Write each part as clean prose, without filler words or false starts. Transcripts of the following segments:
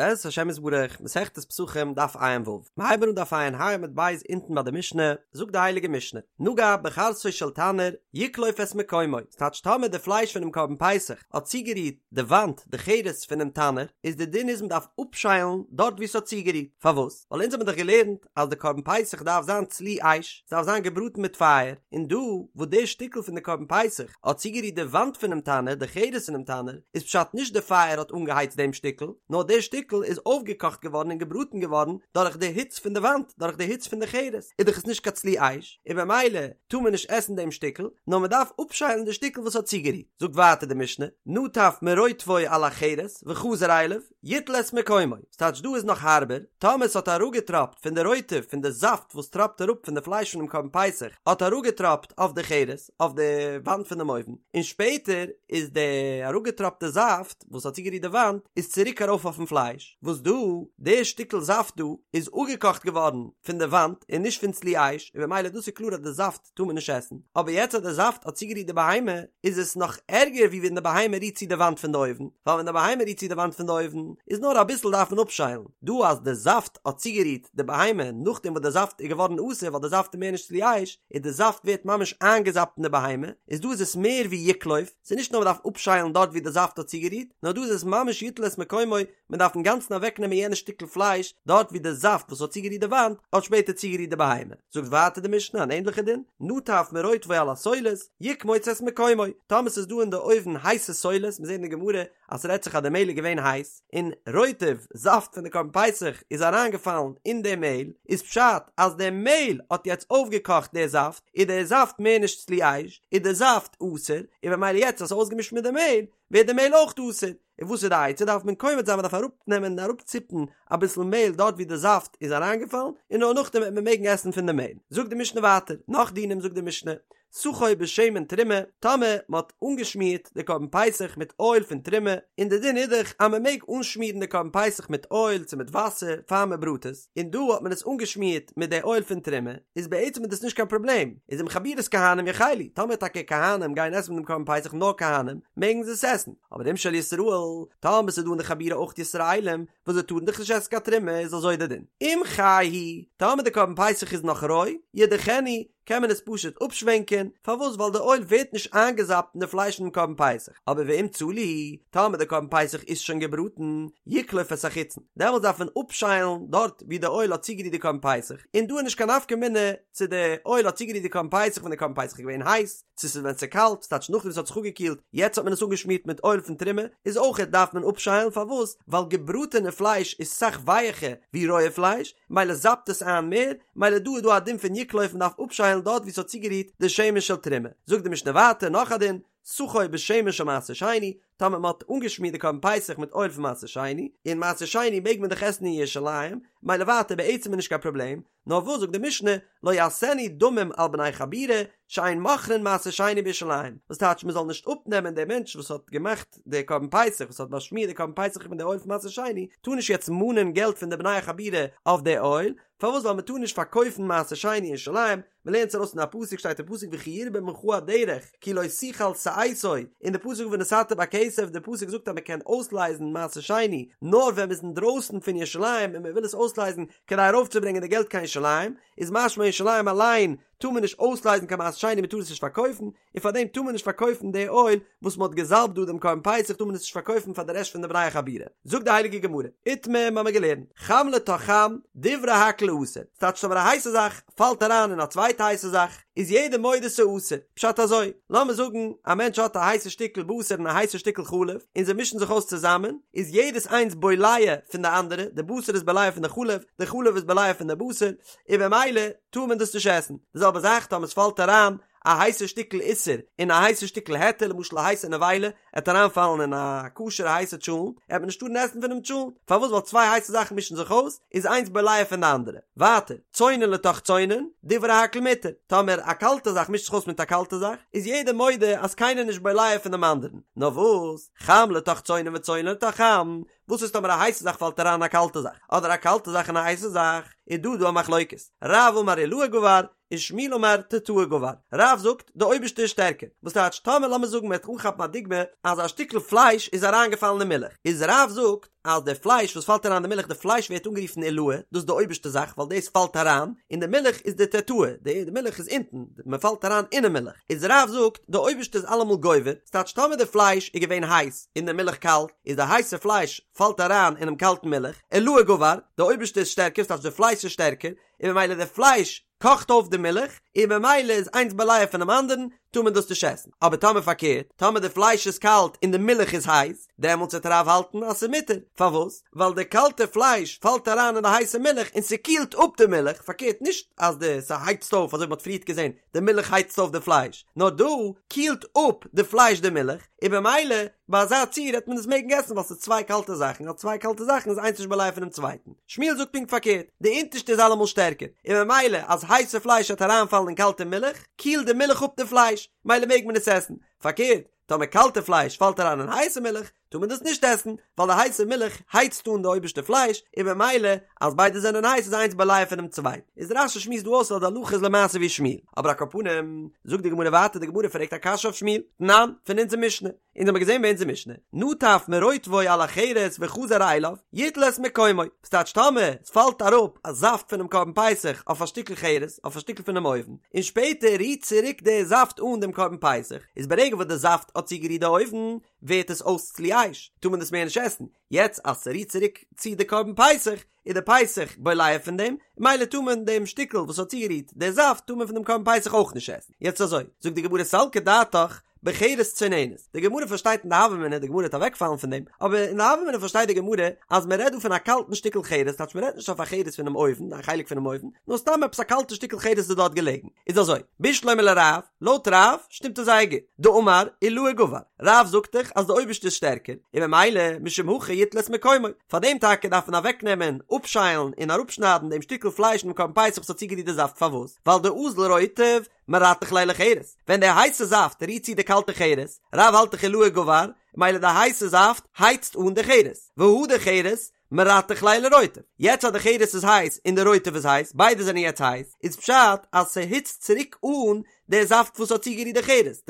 בעזרת השם יתברך, מסכת פסחים דף ע"ו, מ'הייבן אן דף ע"ה עמוד ב' אונטן ביי די משנה, זאגט די הייליגע משנה, נגע בחרסו של תנור, יקלוף את מקומו, ס'טייטש טאמער די פלייש פונעם קרבן פסח האט צוגערירט די וואנט, די חרס פונעם תנור, איז די דין איז מ'דארף אפשיילן דארט וואו ס'האט צוגערירט, פארוואס? ווייל אונז האבן דאך געלערנט אז די קרבן פסח דארף זיין צלי אש, ס'דארף זיין געבראטן מיט פייער, און דא וואס די שטיקל פון די קרבן פסח האט צוגערירט די וואנט פונעם תנור, די חרס פונעם תנור, איז פשט נישט די פייער האט אנגעהייצט דעם שטיקל, נאר די שטיקל איז אויפגעקאכט געווארן און געבראטן געווארן דורך די היץ פון די וואנט, דורך די היץ פון די חרס, איז דאך עס נישט קיין צלי אש, און במילא טאר מען נישט עסן דעם שטיקל, נאר מען דארף אפשיילן די שטיקל וואס האט צוגערירט. זאגט ווייטער די משנה, נטף מרוטבו על החרס וחזר אליו, יטול את מקומו, ס'טייטש דא איז נאך הארבער, טאמער ס'האט אראפגעטראפט פון די רוטב פון די זאפט וואס טראפט אראפ פון די פלייש פונעם קרבן פסח האט אראפגעטראפט אויף די חרס, אויף די וואנט פונעם אויוון, און שפעטער איז די אראפגעטראפטע זאפט וואס האט צוגערירט די וואנט איז צוריק ארויף אויפן פלייש, וואס דא, די שטיקל זאפט דא איז אפגעקאכט געווארן פון די וואנט און נישט פון צלי אש, און במילא דאס איז קלאר אז די זאפט טאר מען נישט עסן, אבער יעצט אז די זאפט האט צוגערירט די בהמה, איז עס נאך ערגער ווי ווען די בהמה רירט צו די וואנט פון די אויוון, ווייל ווען די בהמה רירט צו די וואנט פון די אויוון, איז נאר אביסל דארף מען אפשיילן, דא אז די זאפט האט צוגערירט די בהמה נאכדעם וואס די זאפט איז געווארן אסור ווייל די זאפט איז מער נישט צלי אש, און די זאפט ווערט ממש איינגעזאפט אין די בהמה, איז דא איז עס מער ווי יקלוף, ס'איז נישט נאר מ'דארף אפשיילן דארט ווי די זאפט האט צוגערירט, נאר דא איז עס ממש יטול את מקומו, מען דארף אינגאנצן אוועקנעמען יענע שטיקל פלייש דארט ווי די זאפט וואס האט צוגערירט די וואנט האט שפעטער צוגערירט די בהמה. זאגט ווייטער די משנה אן ענדליכע דין, נטף מרוטבו על הסולת, יקמוץ את מקומו, טאמער ס'איז דא אין די אויוון הייסע סולת, מיר זעהן אין די גמרא אז ס'רעדט זיך אז די מעהל איז געווען הייס, און רוטב, זאפט פון די קרבן פסח, איז אריינגעפאלן אין די מעהל, איז פשט אז די מעהל האט יעצט אויפגעקאכט די זאפט, איז די זאפט מער נישט צלי אש, איז די זאפט אסור, און במילא יעצט אז ס'איז אויסגעמישט מיט די מעהל, ווערט די מעהל אויך אסור. און וואס איז די עצה דארף מען קומץ זיין מען דארף אראפנעמען און אראפציפן אביסל מעהל דארט ווי די זאפט איז אריינגעפאלן און נאר נאכדעם וועט מען מעגן עסן פון די מעהל זאגט די משנה ווייטער נאך דינים זאגט די משנה סכו בשמן תרומה טאמער מען האט אנגעשמירט די קרבן פסח מיט אויל פון תרומה און די דין איז דאך אז מען מעג אנשמירן די קרבן פסח מיט אויל צו מיט וואסער פאר מען בראט עס און דא האט מען עס אנגעשמירט מיט די אויל פון תרומה, איז בעצם איז דאס נישט קיין פראבלעם, איז אם חבורת כהנים יאכלו, טאמער טאקע כהנים גייען עסן מיט דעם קרבן פסח נאר כהנים, מעגן זיי עס עסן, אבער אם של ישראל, טאמער ס'איז דא אין די חבורה אויך ישראלים, וואס זיי טארן דאך נישט עסן קיין תרומה, איז אזוי די דין. אם חי הוא, טאמער די קרבן פסח איז נאך רוי, ידיחנו, קען מען עס פשוט אפשווענקען, פארוואס ווייל די אויל ווערט נישט איינגעזאפט אין די פלייש פונעם קרבן פסח, אבער ואם צלי, טאמער די קרבן פסח איז שוין געבראטן, יקלוף את החיצון, דעמאלטס דארף מען אפשיילן דארט ווי די אויל האט צוגערירט די קרבן פסח, און דא איז נישט קיין נפקא מינה צו די אויל האט צוגערירט די קרבן פסח ווען די קרבן פסח איז געווען הייס, צו ס'איז ווען ס'איז קאלט, ס'טייטש נאכדעם וואס ס'האט זיך אפגעקילט, יעצט האט מען עס אנגעשמירט מיט אויל פון תרומה, איז אויכעט דארף מען אפשיילן, פארוואס? ווייל געבראטענע פלייש איז סאך ווייעכער ווי רויע פלייש, מילא זאפט עס איין מער, מילא דא איז דא א דין פון יקלוף מ'דארף אפשיילן דארט ווי ס'האט צוגערירט די שמן של תרומה. זאגט די משנה ווייטער נאך א דין, סכו בשמן של מעשר שני, טאמער מ'האט אנגעשמירט די קרבן פסח מיט אויל פון מעשר שני, און מעשר שני מעג מען דאך עסן אין ירושלים, מילא ווייטער בעצם איז נישט קיין פראבלעם, נאר וואס זאגט די משנה, לא יעשנו דמים על בני חבורה, שאין מוכרין מעשר שני בירושלים, וואס טייטש מען זאל נישט אפנעמען דער מענטש וואס האט געמאכט די קרבן פסח, וואס האט באשמירט די קרבן פסח מיט די אויל פון מעשר שני, טאר נישט יעצט מאנען געלט פון די בני החבורה אויף די אויל, פארוואס ווייל מען טאר נישט פארקויפן מעשר שני אין ירושלים, מען לערנט עס ארויס פון א פסוק שטייט אין פסוק וכי ירבה ממך הדרך כי לא תוכל שאתו, און די פסוק ונתת בכסף, די פסוק זאגט אז מען קען אויסלייזן מעשר שני נאר ווען מען איז אינדרויסן פון ירושלים און מען וויל עס אויסלייזן כדי ארויפצוברענגען די געלט קיין ירושלים, איז משמע ירושלים אליין טאר מען נישט אויסלייזן קיין מעשר שני מען טאר עס נישט פארקויפן, און פאר דעם טאר מען נישט פארקויפן די אויל וואס מען האט געזאלבט דא דעם קרבן פסח טאר מען עס נישט פארקויפן פאר די רעשט פון די בני החבורה. זאגט די הייליגע גמרא, איתמר מיר האבן געלערנט, חם לתוך חם, דברי הכל אסור, ס'טייטש טאמער א הייסע זאך פאלט אריין אין א צווייטע הייסע זאך, איז יעדער מודה ס'אסור, פשט אזוי, לאמיר זאגן א מענטש האט א הייסע שטיקל בשר און א הייסע שטיקל חלב, און זיי מישן זיך אויס צוזאמען, איז יעדעס איינס בולע פון די אנדערע, די בשר איז בולע פון די חלב, די חלב איז בולע פון די בשר, און במילא טאר מען דאס נישט עסן. די זעלבע זאך טאמער ס'פאלט אריין א הייסע שטיקל איסור אין א הייסע שטיקל היתר, למשל א הייסע נבילה עט אריינפאלן אין א כשר'ע הייסע טשולנט, עט מען נישט טארן עסן פונעם טשולנט, פארוואס ווייל צוויי הייסע זאכן מישן זיך אויס, איז איינס בולע פון די אנדערע. ווייטער, צונן לתוך צונן, דברי הכל מותר, טאמער א קאלטע זאך מישט זיך אויס מיט א קאלטע זאך, איז יעדער מודה אז קיינער נישט בולע פון דעם אנדערן. נאר וואס, חם לתוך צונן וצונן לתוך חם, וואס איז טאמער א הייסע זאך פאלט אריין אין א קאלטע זאך, אדער א קאלטע זאך אין א הייסע זאך, איז דא דא א מחלוקת. רב אמר עילאה גבר. ושמואל אמר תתאה גבר, רב זאגט די אויבערשטע איז שטערקער, וואס טייטש טאמער לאמיר זאגן מ'וועט אנכאפן א דוגמא אז א שטיקל פלייש איז אריינגעפאלן אין מילך, איז רב זאגט אז די פלייש וואס פאלט אריין אין די מילך די פלייש ווערט אנגערופן עילאה, דאס איז די אויבערשטע זאך ווייל דאס פאלט אריין, און די מילך איז די תתאה, די מילך איז אונטן, מען פאלט אריין אינעם מילך, איז רב זאגט די אויבערשטע איז אלעמאל גובר, ס'טייטש טאמער די פלייש איז געווען הייס און די מילך קאלט, איז די הייסע פלייש פאלט אריין אינעם קאלטן מילך, עילאה גבר, די אויבערשטע איז שטערקער, ס'טייטש די פלייש איז שטערקער, און ממילא די פלייש קאכט אויף די מילך, און ממילא איז איינס בולע פונעם אנדערן, טאר מען דאס נישט עסן. אבער טאמער פארקערט, טאמער די פלייש איז קאלט און די מילך איז הייס, דעמאלטס וועט רב האלטן אז ס'איז מותר. פארוואס? ווייל די קאלטע פלייש פאלט אריין אין די הייסע מילך און ס'קילט אפ די מילך, פארקערט נישט אז די ס'הייצט אויף אזוי ווי מ'האט פריערט געזען, די מילך הייצט אויף די פלייש, נאר דא קילט אפ די פלייש די מילך, און במילא ביי אזא ציור העט מען עס מעגן עסן ווייל ס'איז צוויי קאלטע זאכן, אז צוויי קאלטע זאכן איז איינס נישט בולע פונעם צווייטן. שמואל זאגט פונקט פארקערט, די אונטערשטע איז אלעמאל שטערקער, און במילא אז הייסע פלייש העט אריינפאלן אין קאלטע מילך, קילט די מילך אפ די פלייש, מילא מעג מען עס עסן, פארקערט, טאמער קאלטע פלייש פאלט אריין אין הייסע מילך, טאר מען דאס נישט עסן, ווייל די הייסע מילך הייצט אן די אויבערשטע פלייש, און במילא אז ביידע זענען הייס איז איינס בולע פונעם צווייטן. איז רש"י שמועסט דא אויס אז די הלכה איז למעשה ווי שמואל. אבער על כל פנים, זאגט די גמרא ווייטער, די גמרא פרעגט א קשיא אויף שמואל, תנן, פון אונזער משנה, אונז האמיר געזען ביי אונזער משנה, נטף מרוטבו על החרס וחזר אליו, יטול את מקומו, וואס טייטש טאמער עס פאלט אראפ א זאפט פונעם קרבן פסח אויף א שטיקל חרס, אויף א שטיקל פונעם אויוון, און שפעטער רירט צוריק די זאפט אן דעם קרבן פסח, איז ברגע וואס די זאפט האט צוגערירט די אויוון, ווערט עס אויס צלי אש, טאר מען דאס מער נישט עסן, יעצט אז ס'רירט צוריק צו די קרבן פסח, איז די פסח בולע פון דעם, מילא טאר מען דעם שטיקל וואס האט צוגערירט די זאפט טאר מען פון דעם קרבן פסח אויך נישט עסן. יעצט אזוי, זאגט די גמרא סלקא דעתך בחרס צוננת, די גמרא פארשטייט אין די הוה אמינא, די גמרא וועט אוועקפאלן פון דעם, אבער אין די הוה אמינא פארשטייט די גמרא אז מען רעדט דא פון א קאלטן שטיקל חרס, טייטש מען רעדט נישט אויף א חרס פונעם אויוון, א חלק פונעם אויוון, נאר סתם עפעס א קאלטע שטיקל חרס איז דארט געלעגן. איז אזוי, בשלמא לרב, לויט רב שטימט עס זייער גוט, דאמר עילאה גבר, רב זאגט דאך אז די אויבערשטע איז שטערקער, און ממילא משום הכי יטול את מקומו, פאר דעם טאקע דארף מען אוועקנעמען, אפשיילן און אראפשניידן דעם שטיקל פלייש אינעם קרבן פסח וואס האט צוגערירט די זאפט, פארוואס? ווייל דאזיל רוטב מרתח ליה לחרס, ווען די הייסע זאפט רירט צו די קאלטע חרס, רב האלט דאך עילאה גבר, ממילא די הייסע זאפט הייצט אן די חרס, והדר חרס מרתח ליה לרוטב, יעצט אז די חרס איז הייס און די רוטב איז הייס, ביידע זענען יעצט הייס, איז פשט אז ס'היצט צוריק אן די זאפט וואס האט צוגערירט די חרס,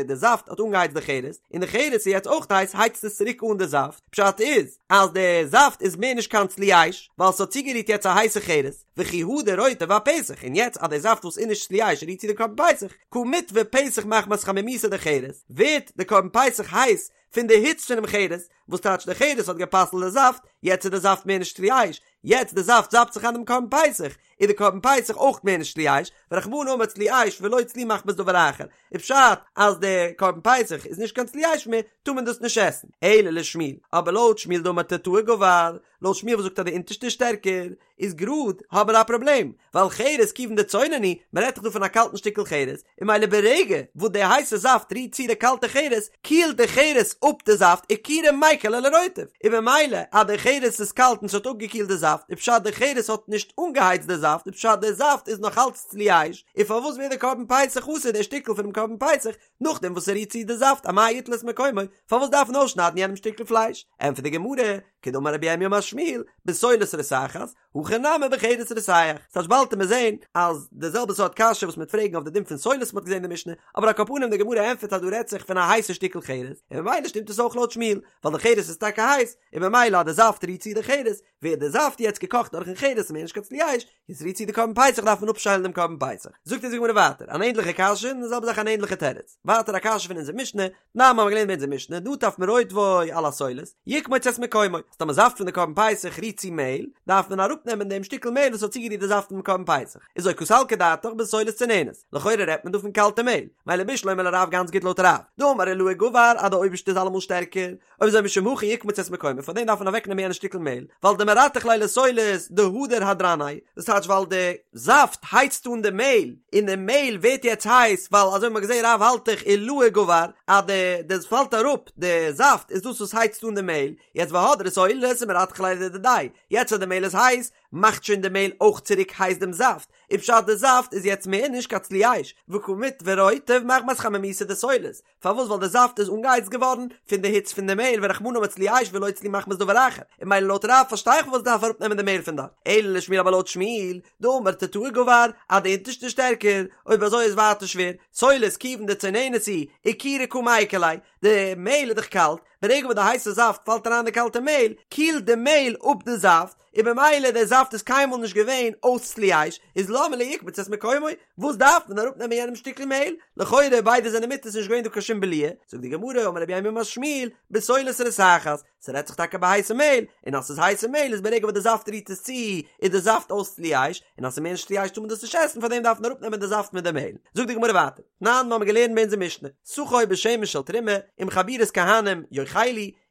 די זאפט האט אנגעהייצט די חרס, און די חרס איז יעצט אויך הייס הייצט עס צוריק אן די זאפט, פשט איז אז די זאפט איז מער נישט קיין צלי אש, ווייל ס'האט צוגערירט יעצט א הייסע חרס, וכי הדר רוטב ואפסח, און יעצט אז די זאפט וואס איז נישט צלי אש רירט צו די קרבן פסח, קא מיטוי פסח מחמת חמימותא דחרס, ווערט די קרבן פסח הייס פון די היץ פונעם חרס, וואס טייטש די חרס האט גע'פסל'ט די זאפט, יעצט איז די זאפט מער נישט צלי אש, יעצט די זאפט זאפט זיך איין דעם קרבן פסח, איז די קרבן פסח אויך מער נישט צלי אש, ורחמנא אמר צלי אש ולא צלי מחמת דבר אחר, איז פשט אז די קרבן פסח איז נישט קיין צלי אש מער, טאר מען דאס נישט עסן, אלא לשמואל, אבער לויט שמואל דאמר תתאה גבר, לויט שמואל וואס זאגט אז די אונטערשטע איז שטערקער, איז גראד האבן מיר א פראבלעם, ווייל חרס כיוון דצונן הוא, מען רעדט דאך דא פון א קאלטן שטיקל חרס, און ממילא ברגע וואס די הייסע זאפט רירט צו די קאלטע חרס, קילט די חרס אפ די זאפט אקורי מיקר ליה לרוטב, און ממילא אז די חרס איז קאלט און ס'האט אפגעקילט די זאפט, איז פשט די חרס האט נישט אנגעהייצט די זאפט, איז פשט די זאפט איז נאך אלץ צלי אש, און פארוואס ווערט די קרבן פסח אסור די שטיקל פונעם קרבן פסח, נאכדעם וואס ס'רירט צו די זאפט אמאי יטול את מקומו, פארוואס דארף מען אויסשניידן יענעם שטיקל פלייש? ענטפערט די גמרא, כדאמר רב ירמי' אמר שמואל, בסולת רותחת, הכא נמי בחרס רותח. ס'טייטש באלד וועט מען זעהן אז די זעלבע סארט קשיא וואס מ'וועט פרעגן אויף די דין פון סולת מ'האט געזעהן אין די משנה, אבער על כל פנים די גמרא ענטפערט אז דא רעדט זיך פון א הייסע שטיקל חרס, און ממילא שטימט עס אויך לויט שמואל, ווייל די חרס איז טאקע הייס, און ממילא אז די זאפט רירט צו די חרס, ווערט די זאפט יעצט געקאכט דורכן חרס און מער נישט קיין צלי אש, און ס'רירט צו די קרבן פסח דארף מען אפשיילן דעם קרבן פסח. זאגט אונז די גמרא ווייטער אן ענדליכע קשיא און די זעלבע זאך אן ענדליכע תירוץ. ווייטער א קשיא פון אונזער משנה, תנן האבן מיר געלערנט אין אונזער משנה, נטף מרוטבו על הסולת, יקמוץ את מקומו, אז טאמער זאפט פון די קרבן פסח רירט צו מעהל, דארף מען אראפנעמען דעם שטיקל מעהל וואס האט צוגערירט די זאפט פונעם קרבן פסח. איז אזוי קא סלקא דעתך בסולת צוננת, לכאורה רעדט מען דא פון קאלטע מעהל, מילא בשלמא לרב גאנץ גוט לויט רב, דאמר עילאה גבר אז די אויבערשטע איז אלעמאל שטערקער, אויב אזוי משום הכי יקמוץ את מקומו, פאר דעם דארף מען אוועקנעמען יענע שטיקל מעהל, ווייל דמרתח ליה לסולת דהדר הדרניה, דאס טייטש ווייל די זאפט הייצט אן די מעהל, און די מעהל ווערט יעצט הייס, ווייל אזוי ווי מ'האט געזעהן רב האלט דאך עילאה גבר, אז די די פאלט אראפ די זאפט איז דאס וואס הייצט אן די מעהל, יעצט והדרה סולת ומרתחא ליה לדידיה, יעצט אז די מעהל איז הייס, מאכט שוין די מעהל אויך צוריק הייס דעם זאפט, און פשט די זאפט איז יעצט מער נישט קיין צלי אש, וקא מיטוי רוטב מחמת חמימותא דסולת, פארוואס ווייל די זאפט איז אנגעהייצט געווארן פון די היץ פון די מעהל ורחמנא אמר צלי אש ולא צלי מחמת דבר אחר, און ממילא לויט רב פארשטיי איך פארוואס דארף אראפנעמען די מעהל פון דארט, אלא לשמואל אבער לויט שמואל, דאמר תתאה גבר, אז די אונטערשטע איז שטערקער, אויב אזוי איז ווייטער שווער, סולת כיוון דצוננת היא, אקורי קא מיקר ליה, די מעהל איז דאך קאלט, ברגע וואס די הייסע זאפט פאלט אריין אין די קאלטע מעהל, קילט די מעהל אפ די זאפט, און במילא דער זאפט איז קיינמאל נישט געווען אויס צלי אש, איז למה לי יקמוץ את מקומו, וואס דארף מען אראפ נעמען יענעם שטיקל מעהל, לכאורה ביידע זענען מותר ס'איז נישט געווען דא קיין שום בליעה, זאגט די גמרא אמר רב יימר אמר שמואל, בסולת רותחת, ס'רעדט זיך טאקע ביי הייסע מעהל, און אז ס'איז הייסע מעהל איז ברגע וואס די זאפט רירט עס צו, איז די זאפט אויס צלי אש, און אז ס'איז מער נישט צלי אש טאר מען דאס נישט עסן פארדעם דארף מען אראפ נעמען די זאפט מיט די מעהל. זאגט די גמרא ווייטער, תנן מ'האמיר געלערנט ביי אונזער משנה, סכו בשמן של תרומה, אם חבורת כהנים יאכלו,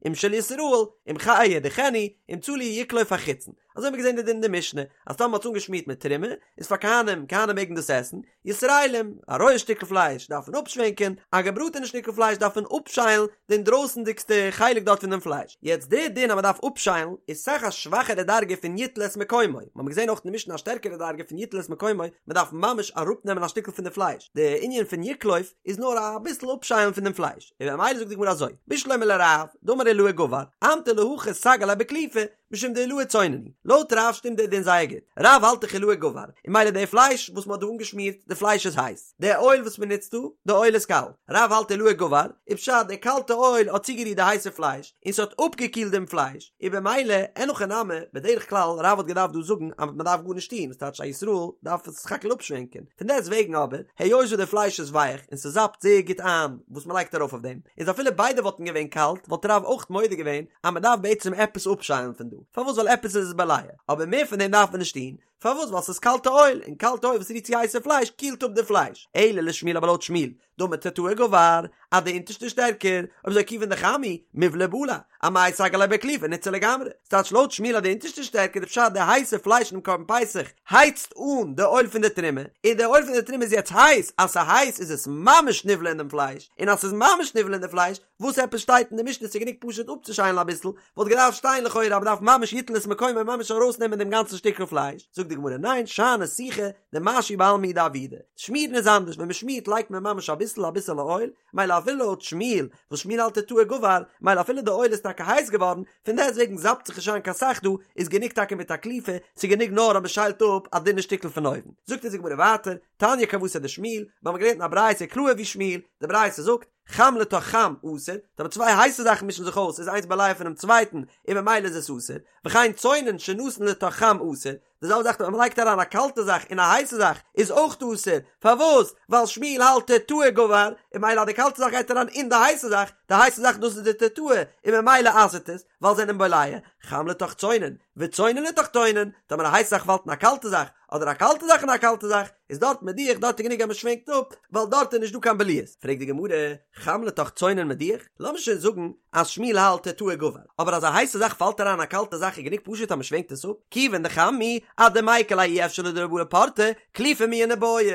אם של ישראל, אם חי ידיחנו, אם צלי יקלוף החיצון. אזוי האבן מיר געזען די דין אין די משנה, אז טאמער מ'האט עס אנגעשמירט מיט תרומה, איז פאר כהנים, כהנים מעגן דאס עסן, ישראלים, א רויע שטיקל פלייש דארף מען אפשווענקען, א געבראטענע שטיקל פלייש דארף מען אפשיילן די אינדרויסנדיגסטע חלק דארט פון דעם פלייש. יעצט די דין אז מ'דארף אפשיילן איז סאך א שוואכערע דרגה פון יטול את מקומו, מ'האמיר געזען אויך אין די משנה א שטערקערע דרגה פון יטול את מקומו, מ'דארף ממש אראפנעמען א שטיקל פון די פלייש, די ענין פון יקלוף איז נאר אביסל אפשיילן פון דעם פלייש, און ממילא זאגט די גמרא אזוי, בשלמא לרב, דאמר עילאה גבר, אמטו להכי סגי ליה בקליפה, משום דעילאה צונן הוא. לויט רב שטימט דער דין זייער גוט. רב האלט דאך עילאה גבר, און ממילא די פלייש וואס מען האט דא אנגעשמירט, די פלייש איז הייס. די אויל וואס מען נוצט דא, די אויל איז קאלט. רב האלט עילאה גבר, איז פשט די קאלטע אויל האט צוגערירט די הייסע פלייש, און ס'האט אפגעקילט דעם פלייש, און במילא, אין הכי נמי, בדרך כלל, רב האט געדארפט דא זאגן אז מען דארף גארנישט טון, וואס טייטש א ישראל דארף עס סך הכל אפשווענקען. פון דעסט וועגן אבער, היות וואס די פלייש איז ווייך און ס'זאפט זייער גוט איין וואס מען לייגט ארויף אויף דעם, איז אפילו ביידע וואלטן געווען קאלט, וואלט רב אויך מודה געווען אז מען דארף בעצם עפעס אפשיילן פון דא, פארוואס ווייל עפעס איז עס בולע, אבער מער פון דעם דארף מען נישט טון, פארוואס ווייל ס'איז קאלטע אויל, און קאלטע אויל וואס רירט צו הייסע פלייש קילט אפ די פלייש, אלא לשמואל אבער לויט שמואל, דאמר תתאה גבר, אז די אונטערשטע איז שטערקער, אויב אזוי כיוון דחם הוא, מיבלע בלע, אמאי סגי ליה בקליפה ניתסר לגמרי, ס'טייטש לויט שמואל אז די אונטערשטע איז שטערקער איז פשט די הייסע פלייש אינעם קרבן פסח הייצט אן די אויל פון די תרומה, און די אויל פון די תרומה איז יעצט הייס, אז ס'הייס איז עס ממש נבלע אין דעם פלייש, און אז ס'איז ממש נבלע אין די פלייש, וואס עפעס שטייט אין די משנה ס'איז גענוג פשוט אפצושיילן אביסל, וואלט געדארפט שטיין לכאורה אז מ'דארף ממש יטול את מקומו ממש ארויסנעמען דעם גאנצן שטיקל פלייש, זאגט די גמרא ניין שאני סיכה דמשהי בעלמא הוא דעבידא, שמירן איז אנדערש ווען מ'שמירט לייגט מען ממש אביסל אביסעלע אויל, מילא אפילו לויט שמואל וואס שמואל האלט תתאה גבר, מילא אפילו די אויל איז טאקע הייס געווארן, פון דעסטוועגן זאפט זיך נישט איין קיין סך דא, איז גענוג טאקע מיט א קליפה, ס'איז גענוג נאר אז מ'שיילט אפ א דינע שטיקל פון אויבן. זאגט אונז די גמרא ווייטער, תניא כוותיה דשמואל, מיר האבן געלערנט אין א ברייתא קלאהר ווי שמואל, די ברייתא זאגט, חם לתוך חם אסור, טאמער צוויי הייסע זאכן מישן זיך אויס איז איינס בולע פונעם צווייטן און ממילא איז עס אסור, וכן צונן שנתן לתוך חם אסור, די זעלבע זאך טאמער מ'לייגט אריין א קאלטע זאך אין א הייסע זאך איז אויך אסור, פארוואס? ווייל שמואל האלט תתאה גבר, און ממילא אז די קאלטע זאך גייט אריין אין די הייסע זאך, די הייסע זאך דאס איז די תתאה, און ממילא אסר'ט עס, ווייל זענען בולע, חם לתוך צונן, וצונן לתוך צונן, טאמער א הייסע זאך פאלט אין א קאלטע זאך, אדער א קאלטע זאך אין א קאלטע זאך, איז דארט מדיח, דארט איז גענוג אז מען שווענקט אפ, ווייל דארט איז נישט דא קיין בליעות. פרעגט די גמרא, חם לתוך צונן מדיח? לאמיר שוין זאגן אז שמואל האלט תתאה גבר, אבער אז א הייסע זאך פאלט אריין אין א קאלטע זאך איז גענוג פשוט אז מען שווענקט עס אפ, כיוון דחם הוא, אדמיקר ליה אי אפשר דלא בלע פורתא, קליפה מיהא ניבעי.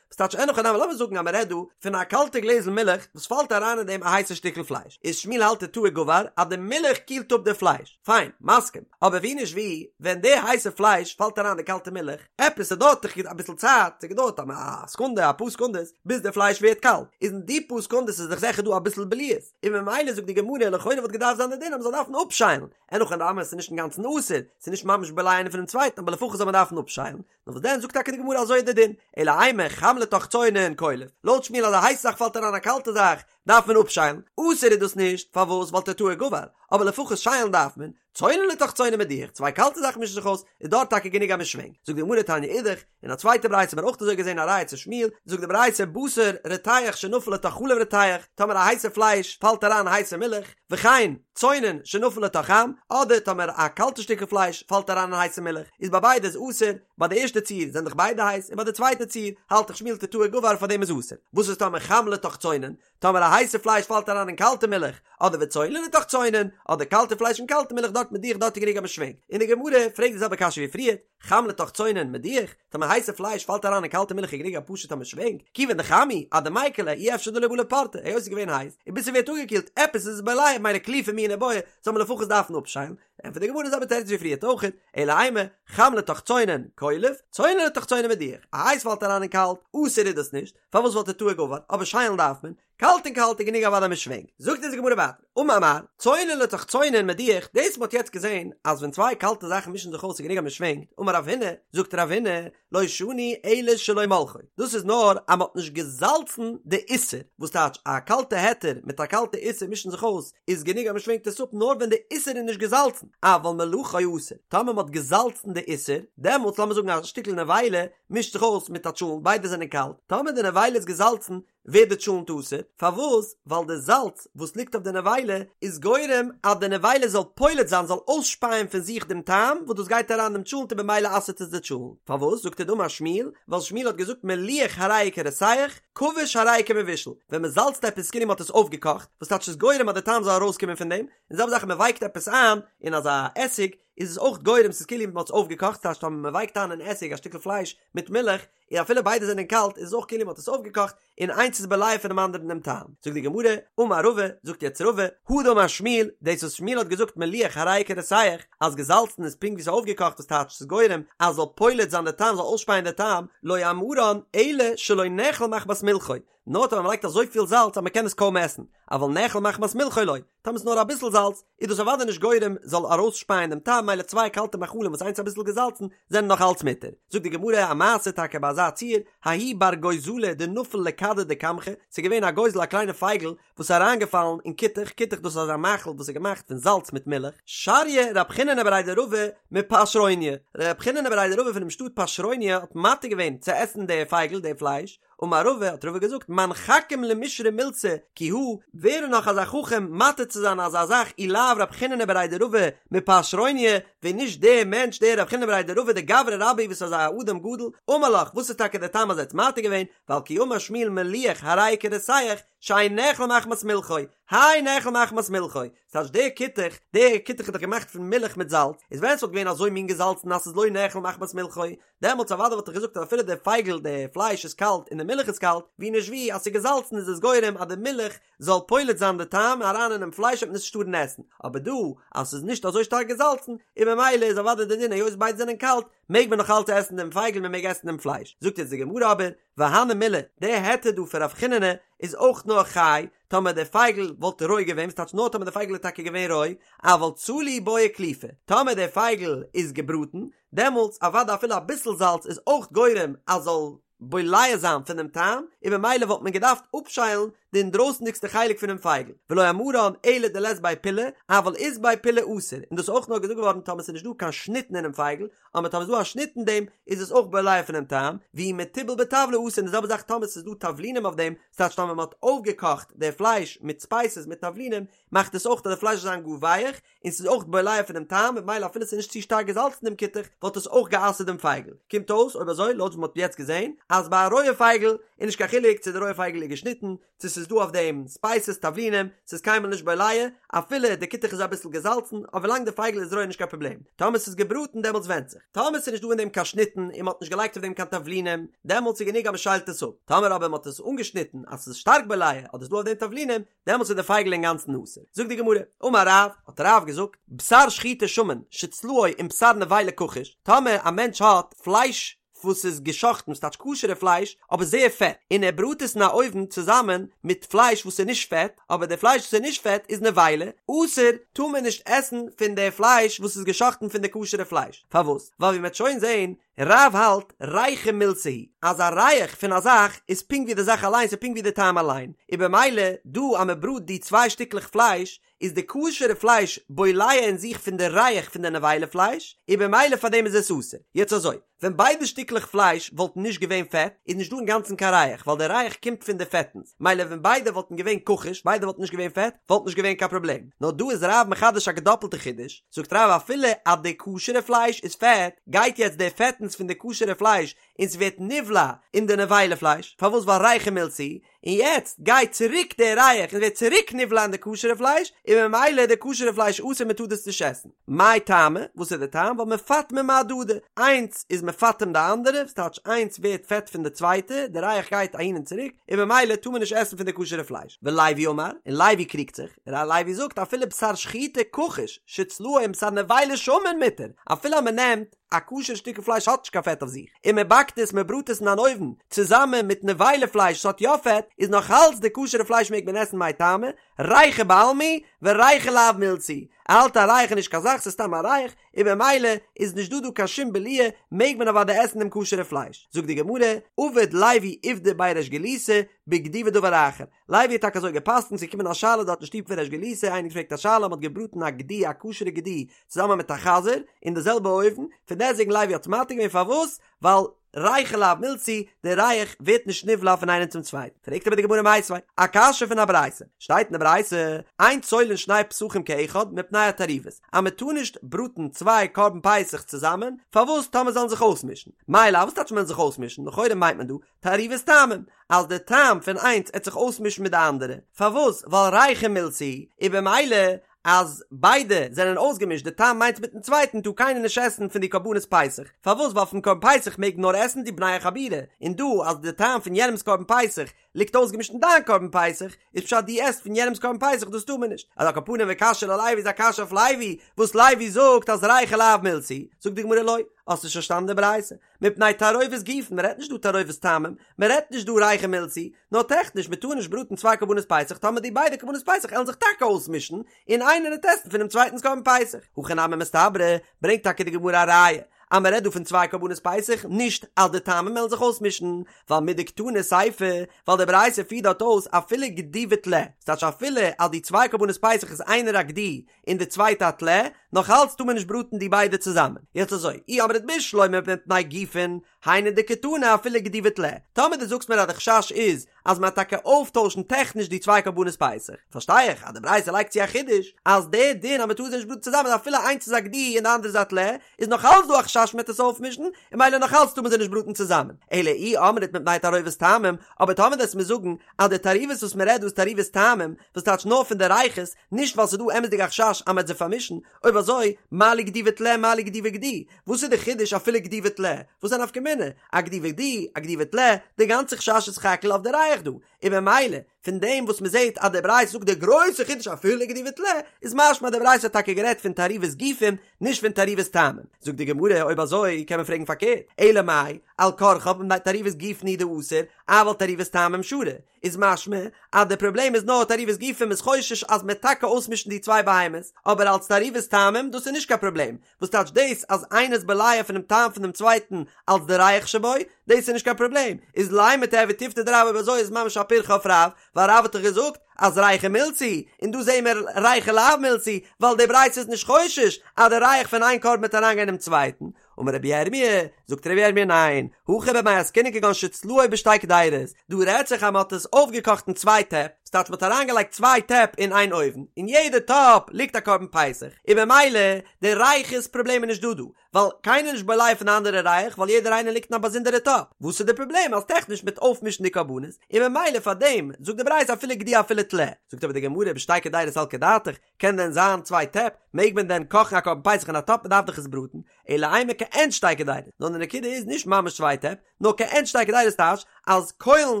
וואס טייטש אין הכי נמי לאמיר זאגן אז מען רעדט דא פון א קאלטע גלעזל מילך וואס פאלט אריין אין דעם א הייסע שטיקל פלייש, איז שמואל האלט תתאה גבר אז די מילך קילט אפ די פלייש, פיין, מסכים, אבער ווי נישט ווי, ווען די הייסע פלייש פאלט אריין די קאלטע מילך, עפעס ס'דויערט דאך אביסל צייט, ס'געדויערט א סעקונדע, אפאר סעקונדעס, ביז די פלייש ווערט קאלט, איז אין די פאר סעקונדעס איז דאך זיכער דא אביסל בליעות, און ממילא זאגט די גמרא לכאורה וואלט געדארפט זיין די דין אז מ'זאל דארפן אפשיילן, אין הכי נמי ס'איז נישט אינגאנצן אסור, ס'איז נישט ממש בולע איינער פונעם צווייטן אבער לפחות זאל מען דארפן אפשיילן, נאר וואס דען זאגט טאקע די גמרא אזוי איז די דין, אלא אימא חם לתוך צונן קולף, לויט שמואל אז א הייסע זאך פאלט אריין א קאלטע זאך דארף מען אפשיילן, אסור איז דאס נישט, פארוואס ווייל תתאה גבר, אבער לפחות שיילן דארף מען, צונן לתוך צונן מדיח, צוויי קאלטע זאכן מישן זיך אויס, איז דארט טאקע גענוג אז מען שווענקט, זאגט די גמרא תניא אידך, אין א צווייטע ברייתא האט מען אויך אזוי געזען א ראיה צו שמואל, זאגט די ברייתא בשר רותח שנפל לתוך חלב רותח, טאמער א הייסע פלייש פאלט אריין הייסע מילך, וכן, צונן שנפל לתוך חם, אדער טאמער א קאלטע שטיקל פלייש פאלט אריין אין הייסע מילך, איז ביי ביידע איז אסור, ביי די ערשטע ציור זענען דאך ביידע הייס, און ביי די צווייטע ציור האלט דאך שמואל תתאה גבר פאר דעם איז אסור. וואס איז טאמער חם לתוך צונן? טאמער א הייסע פלייש פאלט אריין אין קאלטע מילך, אדער וצונן לתוך צונן, אדער קאלטע פלייש אין קאלטע מילך דארט מדיח דארט איז גענוג אז מען שווענקט. און די גמרא פרעגט די זעלבע קשיא ווי פריערט, חם לתוך צונן מדיח, טאמער הייסע פלייש פאלט אריין אין קאלטע מילך איז גענוג א פשוט אז מען שווענקט, כיוון דחם הוא, אדמיקר ליה אי אפשר דלא בלע פורתא, היות עס איז געווען הייס, און ביז ס'ווערט אפגעקילט, עפעס איז עס בולע, מילא קליפה מיהא ניבעי, זאל מען לפחות דארפן אפשיילן. ענטפערט די גמרא די זעלבע תירוץ ווי פריערט אויכעט, אלא אימא, חם לתוך צונן, קולף, צונן לתוך צונן מדיח, א הייס פאלט אריין אין קאלט, אסור איז דאס נישט, פארוואס ווייל תתאה גבר, אבער שיילן דארף מען, קאלט אין קאלט איז גענוג אוודאי מען שווענקט. זאגט אונז די גמרא ווייטער, אמר מר, צונן לתוך צונן מדיח, דאס מ'האט יעצט געזען אז ווען צוויי קאלטע זאכן מישן זיך אויס איז גענוג אז מען שווענקט, אמר רב הונא, זאגט רב הונא, לא שנו אלא שלא מלחו, דאס איז נאר אז מ'האט נישט געזאלצן די איסר, וואס טייטש א קאלטע היתר מיט א קאלטע איסר מישן זיך אויס איז גענוג אז מ'שווענקט עס אפ נאר ווען די איסר איז נישט געזאלצן, אבל מלחו אסור, טאמער מ'האט געזאלצן די איסר, דעמאלטס לאמיר זאגן א שטיקל נבילה מישט זיך אויס מיט א טשולנט ביידע זענען קאלט, טאמער די נבילה איז געזאלצן ווערט די טשולנט אסור, פארוואס? ווייל די זאלץ וואס ליגט אויף די נבילה איז גורם אז די נבילה זאל פולט זיין, זאל אויסשפייען פון זיך דעם טעם וואס דאס גייט אריין דעם טשולנט און במילא אסר'ט עס די טשולנט. פארוואס זאגט ער דאמר שמואל? ווייל שמואל האט געזאגט מליח הרי הוא כרותח, כבוש הרי הוא כמבושל, ווען מען זאלצט עפעס כאילו מען האט עס אויפגעקאכט, וואס טייטש ס'איז גורם אז די טעם זאל ארויסקומען פון דעם, און זעלבע זאך ווען מען ווייקט עפעס איין אין אזא עסיג, איז עס אויך גורם ס'איז כאילו מען האט עס אויפגעקאכט, ס'טייטש טאמער מען ווייקט איין אין עסיג א שטיקל פלייש מיט מילך, און אפילו ביידע זענען קאלט איז עס אויך כאילו מען האט עס אויפגעקאכט און איינס איז בולע פונעם אנדערן דעם טעם. זאגט די גמרא, אמר רבא, זאגט יעצט רבא, הא דאמר שמואל, דאס וואס שמואל האט געזאגט מליח הרי הוא כרותח, אז געזאלצן איז פונקט ווי ס'איז אויפגעקאכט וואס טייטש ס'איז גורם אז זאל פולט זיין די טעם זאל אויסשפייען די טעם, לא אמרן אלא שלא נאכל מחמת מלחו, נאר טאמער מ'לייגט אזויפיל זאלץ אז מ'קען עס קוים עסן, אבל נאכל מחמת מלחו לא, טאמער ס'איז נאר אביסל זאלץ, איז דאס אוודאי נישט גורם זאל ארויסשפייען דעם טעם, מילא צוויי קאלטע מאכלים וואס איינס אביסל געזאלצן, זענען נאך אלץ מותר. זאגט די גמרא א מעשה טאקע ביי אזא ציור, ההוא בר גוזלא דנפל לכדא דקמחא, ס'איז געווען א גוזל א קליינע פייגל וואס איז אריינגעפאלן אין כותח, כותח דאס איז אזא מאכל וואס איז געמאכט פון זאלץ מיט מילך, שריא רב חיננא בריה דרבא מפשרוניא, רב חיננא בריה דרבא פונעם שטאט פשרוניא האט מתיר געווען צו עסן די פייגל, די פלייש, אמר רבא, האט רבא געזאגט, מאן חכים למישרי מילתא כי הא, ווער איז נאך אזא חכם מתיר צו זיין אזא זאך אי לאו רב חיננא בריה דרבא מפשרוניא, ווען נישט דער מענטש דער רב חיננא בריה דרבא דגברא רבה וואס איז אזא אדם גדול, אמר לך, וואס איז טאקע דער טעם אז ער האט מתיר געווען, ווייל כי אמר שמואל מליח הרי הוא כרותח, שאין נאכל מחמת מלחו, האי נאכל מחמת מלחו, ס'טייטש דער כותח, דער כותח איז דאך געמאכט פון מילך מיט זאלץ, איז ווען ס'וואלט געווען אזוי מין געזאלצן אז ס'איז לא נאכל מחמת מלחו, דעמאלטס אוודאי וואלט איך געזאגט אז אפילו די פייגל די פלייש איז קאלט און די מילך איז קאלט, ווי נישט ווי אז ס'איז געזאלצן איז עס גורם אז די מילך זאל פולט זיין די טעם אריין אינעם פלייש וועט מען עס נישט טארן עסן, אבער דא אז ס'איז נישט אזוי שטארק געזאלצן און ממילא איז אוודאי די דין היות ביידע זענען קאלט מעג מען נאך אלץ עסן דעם פייגל מען מעג עסן דעם פלייש, זאגט יעצט די גמרא אבער והני מילי, די היתר דא פון רב חיננא איז אויך נאר חי טאמער די פייגל וואלט רוי געווען, וואס טייטש נאר טאמער די פייגל איז טאקע געווען רוי, אבל צלי בעי קליפה, טאמער די פייגל איז געבראטן, דעמאלטס אוודאי אפילו אביסל זאלץ איז אויך גורם אז זאל בולע זיין פון דעם טעם, און ממילא וואלט מען געדארפט אפשיילן די אינדרויסנדיגסטע חלק פונעם פייגל, ולא אמרן אלא דלית ביה פולי, אבל אית ביה פולי אסור, און דאס איז אויך נאר געזאגט געווארן טאמער ס'איז נישט דא קיין שניטן אינעם פייגל, אבער טאמער ס'איז דא א שניט אין דעם איז עס אויך בולע פונעם טעם, ואי מתובל בטבלי אסור, און די זעלבע זאך טאמער ס'איז דא תבלינים אויף דעם, ס'טייטש טאמער מ'האט אויפגעקאכט די פלייש מיט ספייסעס מיט תבלינים, מאכט עס אויך אז די פלייש זאל זיין גאר ווייעך, און ס'איז אויך בולע פונעם טעם, ממילא אפילו ס'איז נישט צו שטארק געזאלצן דעם כותח, וואלט עס אויך גע'אסר'ט דעם פייגל. קומט אויס, אויב אזוי, לויט וואס מ'האט יעצט געזען, אז ביי א רויע פייגל איז נישט קיין חילוק צו די רויע פייגל איז געשניטן, צו ס'איז דא אויף דעם ספייסעס, תבלינים, ס'איז קיינמאל נישט בולע, אפילו די כותח איז אביסל געזאלצן, אבער ווילאנג די פייגל איז רוי איז נישט קיין פראבלעם. טאמער ס'איז געבראטן דעמאלטס ווענדט זיך. טאמער ס'איז נישט דא אין דעם קיין שניטן און מ'האט נישט געלייגט אויף דעם קיין תבלינים, דעמאלטס איז גענוג אז מ'שיילט עס אפ. טאמער אבער מ'האט עס אנגעשניטן אז ס'איז שטארק בולע, אדער ס'איז דא אויף דעם תבלינים, דעמאלטס איז די פייגל אינגאנצן אסור. זאגט די גמרא, אמר רב, האט רב געזאגט, בשר שחוטה שמן שצלאו עם בשר נבילה כחוש, טאמער א מענטש האט פלייש וואס איז געשאכטן, ס'טייטש כשר'ע פלייש, אבער זייער פעט, און ער בראט עס אין א אויוון צוזאמען מיט פלייש וואס איז נישט פעט, אבער די פלייש וואס איז נישט פעט איז נבילה, אסור, טאר מען נישט עסן פון די פלייש וואס איז געשאכטן פון די כשר'ע פלייש. פארוואס? ווייל ווי מ'וועט שוין זען, רב האלט ריחא מילתא היא, אז א ריח פון א זאך איז פונקט ווי די זאך אליין, ס'איז פונקט ווי די טעם אליין, און במילא דא אז מ'בראט די צוויי שטיקלעך פלייש, איז די כשר'ע פלייש בולע אין זיך פון די ריח פון די נבילה פלייש, און במילא פאר דעם איז עס אסור. יעצט אזוי, ווען ביידע שטיקלעך פלייש וואלטן נישט געווען פעט, איז נישט דא אינגאנצן קיין ריח, ווייל די ריח קומט פון די פעטנס, מילא ווען ביידע וואלטן געווען כחוש, ביידע וואלטן נישט געווען פעט, וואלט נישט געווען קיין פראבלעם. נאר דא איז רב מחדש א געדאפלטע חידוש, זאגט רב אפילו אז די כשר'ע פלייש איז פעט, גייט יעצט די פעטנס פון די כשר'ע פלייש און ס'ווערט נבלע אין די נבילה פלייש, פארוואס ווייל ריחא מילתא היא, און יעצט גייט צוריק די ריח און ווערט צוריק נבלע אין די כשר'ע פלייש, און ממילא איז די כשר'ע פלייש אסור מען טאר דאס נישט עסן. מאי טעמא, וואס איז די טעם? ווייל מפטמא מהדדי, איינס איז. מפטם די אנדערע, ס'טייטש איינס ווערט פעט פון די צווייטע, די ריח גייט אהין און צוריק, און ממילא טאר מען נישט עסן פון די כשר'ע פלייש. ולוי אמר, און לוי קריגט זיך, ר' לוי זאגט אפילו בשר שחוטה כחוש שצלאו עם בשר נבילה שמן מותר, אפילו אז מען נעמט א כשר שטיקל פלייש האט נישט קיין פעט אויף זיך, און מען באקט עס מען בראט עס אין אן אויוון צוזאמען מיט נבילה פלייש וואס האט יא פעט, איז נאך אלץ די כשר'ע פלייש מעג מען עסן מאי טעמא, ריחא בעלמא הוא וריחא לאו מילתא הוא, ער האלט א ריח איז נישט קיין זאך ס'איז סתם א ריח, און במילא איז נישט דא דא קיין שום בליעה מעג מען אוודאי עסן דעם כשר'ע פלייש. זאגט די גמרא, עבד לוי עובדא בי ריש גלותא בגדי ודבר אחר, לוי האט טאקע אזוי גע'פסק'נט, ס'איז געקומען א שאלה דארט אין שטוב פון ריש גלותא, איינער געפרעגט א שאלה, מ'האט געבראטן א גדי א כשר'ע גדי צוזאמען מיט א חזיר אין די זעלבע אויוון, פון דעסטוועגן לוי האט מתיר געווען פארוואס? ווייל ריחא לאו מילתא הוא, די ריח ווערט נישט נבלע פון איינעם צום צווייטן. פרעגט אבער די גמרא מיתיבי, א קשיא פון א ברייתא, שטייט אין די ברייתא, אין צולין שני פסחים כאחד מפני התערובת, אז מען טאר נישט בראטן צוויי קרבן פסח צוזאמען, פארוואס טאמער זאלן זיך אויסמישן? מאי לאו, וואס טייטש מען זיך אויסמישן? לכאורה מיינט מען דא, תערובת טעמים, אז די טעם פון איינס עט זיך אויסמישן מיט די אנדערע, פארוואס? ווייל ריחא מילתא הוא, און במילא אז ביידע זענען אויסגעמישט די טעם איינס מיטן צווייטן טאר קיינער נישט עסן פון די קרבנות פסח, פארוואס? ווייל פון קרבן פסח מעג נאר עסן די בני החבורה, און דא אז די טעם פון יענעמס קרבן פסח ליגט אויסגעמישט אין דיין קרבן פסח, איז פשט דו עסט פון יענעמס קרבן פסח דאס טאר מען נישט, אז על כל פנים וקשיא ללוי איז א קשיא אויף לוי, וואס לוי זאגט אז ריחא לאו מילתא הוא, זאגט די גמרא לא, האסט נישט פארשטאנען די ברייתא, מפני תערובת גופין, מען רעדט נישט דא תערובת טעמים, מען רעדט נישט דא ריחא מילתא הוא, נאר טעכניש מען טאר נישט בראטן צוויי קרבנות פסח טאמער די ביידע קרבנות פסח עלן זיך טאקע אויסמישן און איינער עט עסן פונעם צווייטנס קרבן פסח. הכי נמי מסתברא, ברענגט טאקע די גמרא א ראיה אז מען רעדט דא פון צוויי קרבנות פסח נישט אז די טעמים עלן זיך אויסמישן, ווייל מדקתני סיפא, ווייל די ברייתא פירט דארט אויס אפילו גדי וטלה, ס'טייטש אפילו אז די צוויי קרבנות פסח איז איינער א גדי און די צווייטע א טלה, נאך אלץ טאר מען נישט בראטן די ביידע צוזאמען. יעצט אזוי, אי אמרת בשלמא מפני גופין, היינו דקתני אפילו גדי וטלה. טאמער דו זאגסט מיר אז די חשש איז אז מ'וועט טאקע אויפטוישן טעכניש די צוויי קרבנות פסח, פארשטיי איך אז די ברייתא לייגט צו א חידוש אז די דין אז מ'טאר זיי נישט בראטן צוזאמען אפילו איינס איז א גדי און די אנדערע איז א טלה, איז נאך אלץ דא א חשש מ'וועט עס אויפמישן, און ממילא נאך אלץ טאר מען זיי נישט בראטן צוזאמען. אלא אי אמרת מפני תערובת טעמים, אבער טאמער דו וועסט מיר זאגן אז די תערובת וואס מ'רעדט דא איז תערובת טעמים, וואס טייטש נאר פון די ריחות, נישט ווייל ס'איז דא אמת'דיג א חשש אז מ'וועט זיי פארמישן, אויב אזוי, מה לי גדי וטלה מה לי גדי וגדי, וואס איז די חידוש אפילו גדי וטלה? וואס איז א נפקא מינה? א גדי וגדי, א גדי וטלה, די גאנצע חשש איז סך הכל אויף די ריח דא, און ממילא, פון דעם וואס מ'זעט אז די ברייתא זאגט די גרויסע חידוש אפילו גדי וטלה, איז משמע אז די ברייתא האט טאקע גערעדט פון תערובת גופים, נישט פון תערובת טעמים. זאגט די גמרא, אויב אזוי קען מען פרעגן פארקערט, אלא מאי, על כרחך מפני תערובת גופין הוא דאסור, אבל תערובת טעמים שרי. איז משמע אז די פראבלעם איז נאר תערובת גופין מ'איז חושש אז מ'עט טאקע אויסמישן די צוויי בהמות, אבער אלס תערובת טעמים דאס איז נישט קיין פראבלעם, וואס טייטש דאס אז איינער איז בולע פונעם טעם פונעם צווייטן אלס די ריח שבו, דאס איז נישט קיין פראבלעם, איז לימא תיהוי תיובתא דרב אויב אזוי איז ממש א פירכא אויף רב, ווייל רב האט דאך געזאגט אז ריחא מילתא הוא, און דא זעהן מיר ריחא לאו מילתא הוא, ווייל די ברייתא איז נישט חושש אז די ריח פון איין קרבן וועט אריינגיין אינעם צווייטן, אמר רבי ירמי', זאגט רבי ירמי' ניין, הכא במאי עסקינן כגון שצלאו בשתי קדירות, דא רעדט זיך אז מען האט עס אויפגעקאכט אין צוויי טעפ, ס'טייטש מען האט אריינגעלייגט צוויי טעפ אין איין אויוון, אין יעדע טאפ ליגט א קרבן פסח, און במילא די ריחות פראבלעם איז נישט דא דא, ווייל קיינער איז נישט בולע פון די אנדערע ריח ווייל יעדער איינער ליגט אין א באזונדערע טאפ, וואס איז די פראבלעם אז טעכניש מ'וועט אויפמישן די קרבנות, און במילא פאר דעם זאגט די ברייתא אפילו גדי אפילו טלה, זאגט אבער די גמרא בשתי קדירות סלקא דעתך, קען דען זיין צוויי טעפ? מעג מען דען קאכן א קרבן פסח אין א טאפ? מ'דארף דאך עס בראטן. אלא אימא כעין שתי קדירות. נאר די נקודה איז נישט ממש צוויי טעפ, נאר כעין שתי קדירות טייטש אז קוילן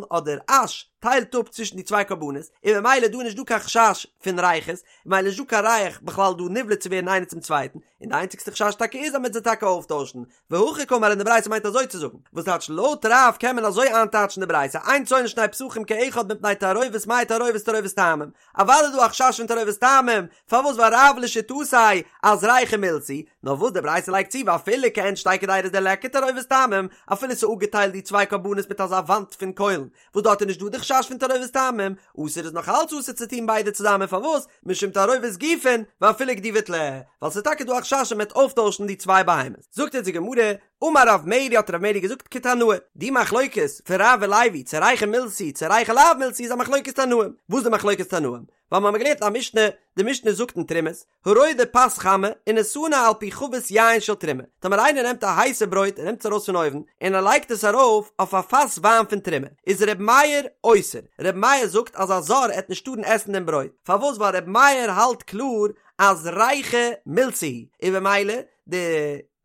אדער אש טיילט אפ צווישן די צוויי קרבנות, און ממילא דא איז נישט דא קיין חשש פון ריחות, ממילא נישט דא קיין ריח בכלל דא נבלע צו ווערן איינער צום צווייטן, און די איינציגסטע חשש טאקע איז אז מ'וועט זיי טאקע אויפטוישן, והכי קאמר און די ברייתא מיינט אזוי צו זאגן, וואס טייטש לויט רב קען מען אזוי איינטייטשן די ברייתא, אין צולין שני פסחים כאחד מפני תערובת מאי תערובת תערובת טעמים, אוודאי איז דא א חשש פון תערובת טעמים, פארוואס ווייל רב לשיטתו אז ריחא מילתא הוא, נאר וואס די ברייתא לייגט צו ואפילו כעין שתי קדירות דליכא תערובת טעמים, אפילו ס'איז אפגעטיילט די צוויי קרבנות מיט אזא וואנט פון קוילן, וואס דארט איז נישט דא די חשש פון תערובת טעמים, אסור איז נאך אלץ אסור צו טון ביידע צוזאמען פארוואס? משום תערובת גופין ואפילו גדי וטלה, ווייל ס'איז טאקע דא א חשש אז מ'וועט אויפטוישן די צוויי בהמות. זאגט אונז די גמרא, אמר רב מרי האט רב מרי געזאגט כתנאי, די מחלוקת פון רב און לוי צו ריחא מילתא הוא צו ריחא לאו מילתא הוא איז א מחלוקת תנאים, וואס איז די מחלוקת תנאים? ווייל מ'האמיר געלערנט א משנה, די משנה זאגט אין תרומות, הרודה פת חמה ונתנה על פי חבית יין של תרומה, טאמער איינער נעמט א הייסע ברויט און נעמט עס ארויס פון אויוון און ער לייגט עס ארויף אויף א פאס וויין פון תרומה, איז ר' מאיר אוסר, ר' מאיר זאגט אז א זר עט נישט טארן עסן דעם ברויט, פארוואס ווייל ר' מאיר האלט קלאר אז ריחא מילתא הוא, און במילא די.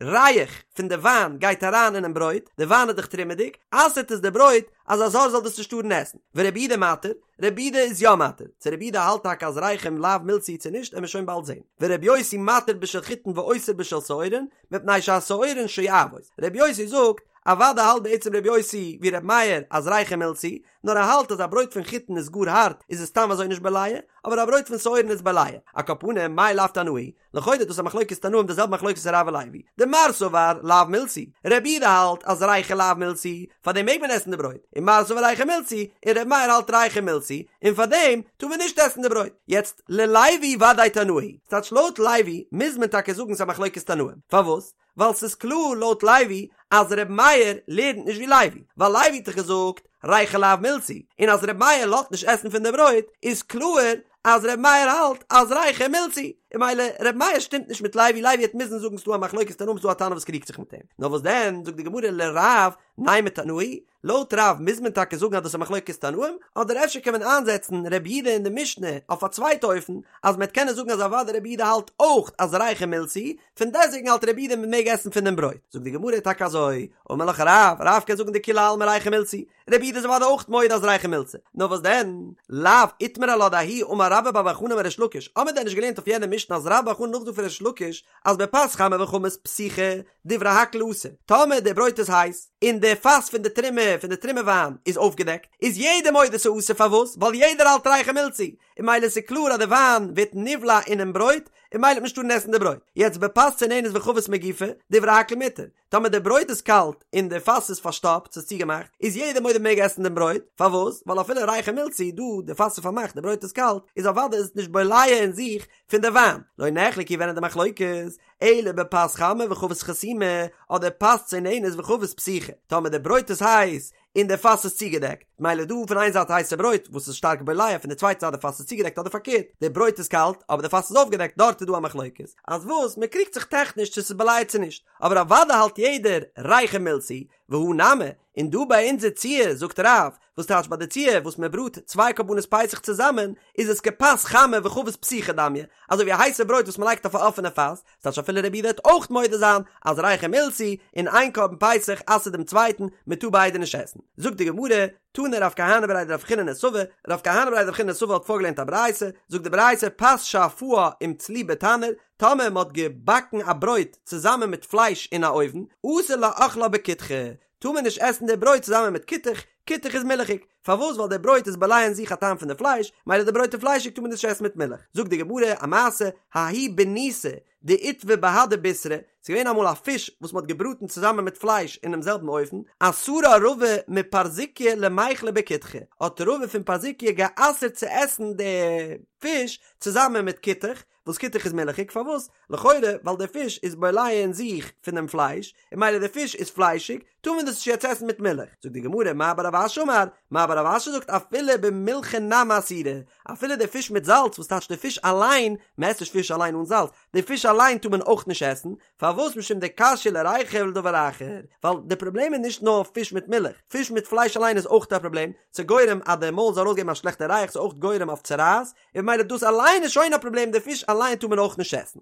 ריח פון די וויין גייט אריין אינעם ברויט, די וויין איז דאך תרומה'דיג, אסר'ט עס די ברויט אז א זר זאל דאס נישט טארן עסן. ורבי יהודה מתיר, רבי יהודה איז יא מתיר. צו רבי יהודה האלט טאקע אז ריחא לאו מילתא היא צו נישט, עמיר שוין באלד זען. ורבי יוסי מתיר בשל חיטין ואוסר בשל שעורין, מפני שהשעורין שואבות. רבי יוסי זאגט, אוודאי האלט בעצם רבי יוסי ווי רבי מאיר אז ריחא מילתא היא, נאר ער האלט אז א ברויט פון חיטין איז גאר הארט איז עס סתם אזוי נישט בולע, אבער א ברויט פון שעורין איז בולע. על כל פנים, מאי לאו תנאי? לכאורה איז דאס א מחלוקת תנאים די זעלבע מחלוקת רב ולוי. דמר סבר לאו מילתא היא, רבי יהודה האלט אז ריחא לאו מילתא היא, פארדעם מעג מען עסן די ברויט, און מר סבר ריחא מילתא היא, און רבי מאיר האלט ריחא מילתא היא, און פארדעם טאר מען נישט עסן די ברויט. יעצט, ללוי ודאי תנאי היא. ס'טייטש לויט לוי מוז מען טאקע זאגן ס'איז א מחלוקת תנאים. פארוואס? ווייל ס'איז קלאר לויט לוי אז ר' מאיר לערנט נישט ווי לוי, ווייל לוי האט דאך געזאגט ריחא לאו מילתא היא, און אז ר' מאיר לאזט נישט עסן פון די ברויט איז קלאר אז ר' מאיר האלט אז ריחא מילתא היא, און ממילא ר' מאיר שטימט נישט מיט לוי, לוי וועט מוזן זאגן ס'דא א מחלוקת תנאים ס'דא א תנא וואס קריגט זיך מיט אים, נאר וואס דען זאגט די גמרא לרב נימא תנאי היא, לויט רב מוז מען טאקע זאגן אז דאס איז א מחלוקת תנאים, אדער אפשר קען מען איינזעצן רבי יהודה אין די משנה אויף א צווייטע אופן, אז מען וועט קענען זאגן אז אוודאי רבי יהודה האלט אויך אז ריחא מילתא היא, פון דעסטוועגן האלט רבי יהודה מען מעג עסן פון דעם ברויט. זאגט די גמרא טאקע אזוי, אמר לך רב, רב קען זאגן דכולי עלמא ריחא מילתא היא, רבי יהודה איז אוודאי אויך מודה אז ריחא מילתא, נאר וואס דען, לאו איתמר עלה דההוא אמר רבה בר בר חנה אמר ריש לקיש, האמיר דען נישט געלערנט אויף יענע משנה אז רבה בר חנה נאכזאגט פון ריש לקיש אז בפת חמה וחבית פתוחה דברי הכל אסור, טאמער די ברויט איז הייס, און די פאס פון די תרומה פון די תרומה וויין איז אויפגעדעקט, איז יעדער מודה ס'אסור פארוואס? ווייל יעדער האלט ריחא מילתא היא, און ממילא איז קלאר אז די וויין ווערט נבלע אינעם ברויט, און ממילא וועט מען נישט טארן עסן די ברויט. יעצט בפת צוננת וחבית מגופה, דברי הכל מותר, טאמער די ברויט איז קאלט און די פאס איז פארשטאפט, ס'איז צוגעמאכט, איז יעדער מודה מ'מעג עסן דעם ברויט, פארוואס? ווייל אפילו ריחא מילתא היא, דא די פאס איז פארמאכט די ברויט איז קאלט, איז אוודאי איז עס נישט בולע אין זיך פון די וויין. לא נחלקו ווען איז די מחלוקת? אלא בפת חמה וחבית חתומה, אדער פת צוננת וחבית פתוחה, טאמער די ברויט איז הייס און די פאס איז צוגעדעקט, מילא דא פון איין זייט הייסע ברויט וואס איז שטארק בולע, פון די צווייטע זייט די פאס איז צוגעדעקט אדער פארקערט, די ברויט איז קאלט אבער די פאס איז אויפגעדעקט דארט איז דא א מחלוקת, אז וואס מען קריגט זיך טעכניש צו ס'איז בולע צו נישט, אבער אוודאי האלט יעדער ריחא מילתא היא, והא נמי, און דא ביי אונזער ציור זאגט רב, וואס טייטש ביי די ציור וואס מען בראט צוויי קרבנות פסח צוזאמען, איז עס כפת חמה וחבית פתוחה דמיא, אזוי ווי א הייסע ברויט וואס מען לייגט אויף א אפענע פאס, ס'טייטש אפילו רבי יהודה וועט אויך מודה זיין אז ריחא מילתא היא, און איין קרבן פסח אסר'ט דעם צווייטן, מען טאר ביידע נישט עסן. זאגט די גמרא, תני רב כהנא בריה דרב חיננא סבא, רב כהנא בריה דרב חיננא סבא האט פארגעלערנט א ברייתא, זאגט די ברייתא פת שאפאה עם צלי בתנור, טאמער מען האט געבאקן א ברויט צוזאמען מיט פלייש אין א אויוון, אסור לאכלה בכותחא, טאר מען נישט עסן די ברויט צוזאמען מיט כותח, כותח איז מילכיג, פארוואס ווייל די ברויט איז בולע אין זיך א טעם פון די פלייש, מילא די ברויט איז פליישיג טאר מען נישט עסן מיט מילך, זאגט די גמרא א מעשה, ההיא ביניתא דאיתבא בהדי בישרא, ס'איז געווען אמאל א פיש וואס מ'האט געבראטן צוזאמען מיט פלייש אינעם זעלבן אופן, אסרה רבא מפרזיקיא למיכלה בכותחא, האט רבא פון פרזיקיא גע'אסר'ט צו עסן די פיש צוזאמען מיט כותח, וואס כותח איז מילכיג, פארוואס? לכאורה ווייל דער פיש איז בולע אין זיך פון דעם פלייש, און מילא דער פיש איז פליישיג, טאר מען דאס נישט יעצט עסן מיט מילך. זאגט די גמרא, מר בר רב אשי אמר, מר בר רב אשי זאגט אפילו במילחא נמי אסירא, אפילו דער פיש מיט זאלץ, וואס טייטש דער פיש אליין, מען עסט נישט פיש אליין אן זאלץ, די פיש אליין טאר מען אויך נישט עסן, פארוואס משום דקשיא לריחא ולדבר אחר, ווייל די פראבלעם איז נישט נאר פיש מיט מילך, פיש מיט פלייש אליין איז אויך א פראבלעם, ס'איז גורם אז די מויל זאל ארויסגעבן א שלעכטע ריח, ס'איז אויך גורם אויף צרעת, און ממילא דאס אליין איז שוין א פראבלעם, די פיש אליין טאר מען אויך נישט עסן.